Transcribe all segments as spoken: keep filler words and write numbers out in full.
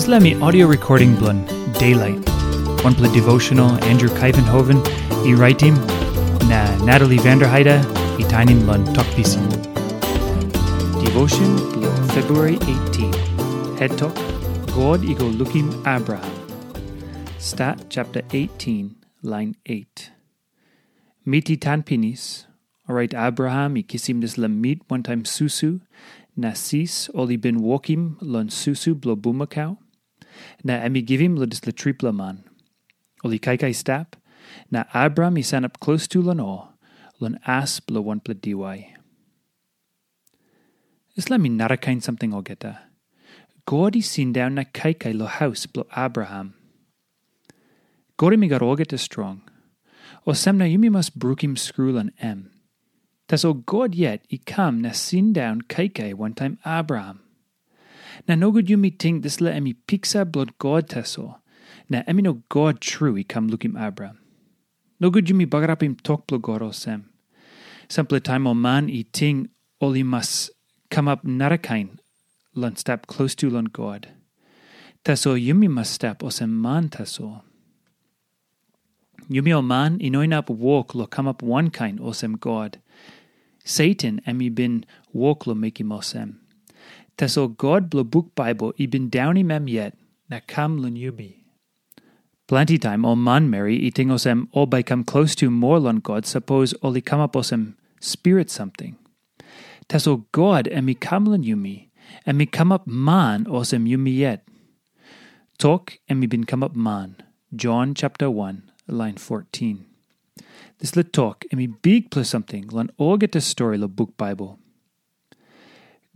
Dispela mi audio recording bilong Daylight. Wanpela devotional Andrew Kaivenhoven i raitim, na Natalie Vanderheide i tainim long tok pisin. Devotion bilong February eighteen. Head tok, God i go lukim Abraham. Stat chapter eighteen, line eight. Mit i tan pinis, orait Abraham i kisim dispela mit wantaim susu, na sis ol i bin wokim long susu bilong bumakau, na em i givim long dispela tripela man. Ol i kaikai stap, na Abraham i sanap klostu long ol, long as bilong wanpela diwai. Dispela mi narakain samting olgeta. God i sindaun na kaikai long haus bilong Abraham. God em i gat olgeta strong. Olsem na yumi mas brukim skru long em. Tasol God yet i kam na sindaun kaikai wantaim Abraham. Na nogut yumi ting dispela em i piksa bilong God tasol, na em i no God tru i kam lukim Abraham. Nogut yumi bagarapim tok bilong God olsem. Sampela taim ol man i ting ol i mas kamap narakain long stap klostu long God. Tasol yumi mas stap olsem man tasol. Yumi ol man i no inap wok long kamap wankain olsem God. Satan em i bin wok long mekim olsem. Tasol God bilong buk Baibel i bin daunim em yet na kam long yumi. Planti taim ol manmeri i ting olsem ol bai i kam klostu moa long God sapos ol i kamap olsem spirit samting. Tasol God em i kam long yumi, em i kamap man olsem yumi yet. Tok em i bin kamap man, Jon chapter one, lain fourteen. Dispela tok em i bikpela samting long olgeta stori long buk Baibel.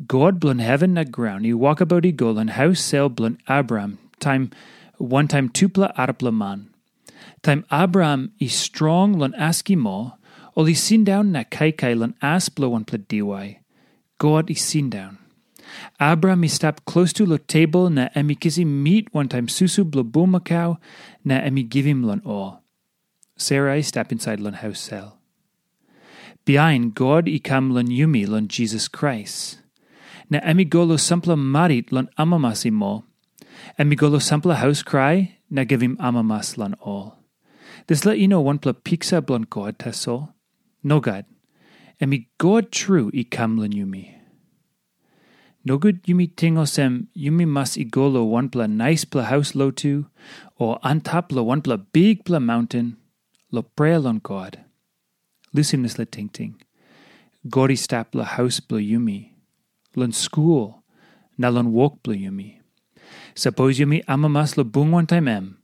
God bilong heven na graun i wokabaut i go long haus sel bilong Abraham taim wantaim tupela arapela man. Taim Abraham i strong long askim ol, ol i sindaun na kaikai long as bilong wanpela diwai. God i sindaun. Abraham i stap klostu long tebol na em i kisim mit wantaim susu bilong bumakau na em i givim long ol. Sera i stap insait long haus sel. Bihain God i kam long yumi long Jisas Krais. Na em i go long sampela marit long amamas i mo. Em i go long sampela haus krai na givim amamas long ol. Dispela i no wanpela piksa bilong God tasol. Nogat. Em i God tru i kam long yumi. Nogut yumi ting olsem yumi mas i go long wanpela naispela haus lotu, o antap long wanpela bikpela maunten, long prea long God. Lusim dispela tingting. God i stap long haus bilong yumi, long skul, na long wok bilong yumi. Sapos yumi amamas long bung wantaim em,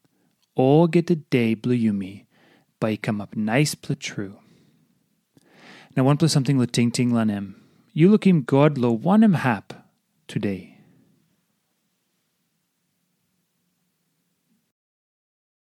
olgeta de bilong yumi bai i kamap naispela tru. Na wanpela samting long tingting long em, yu lukim God long wanem hap today?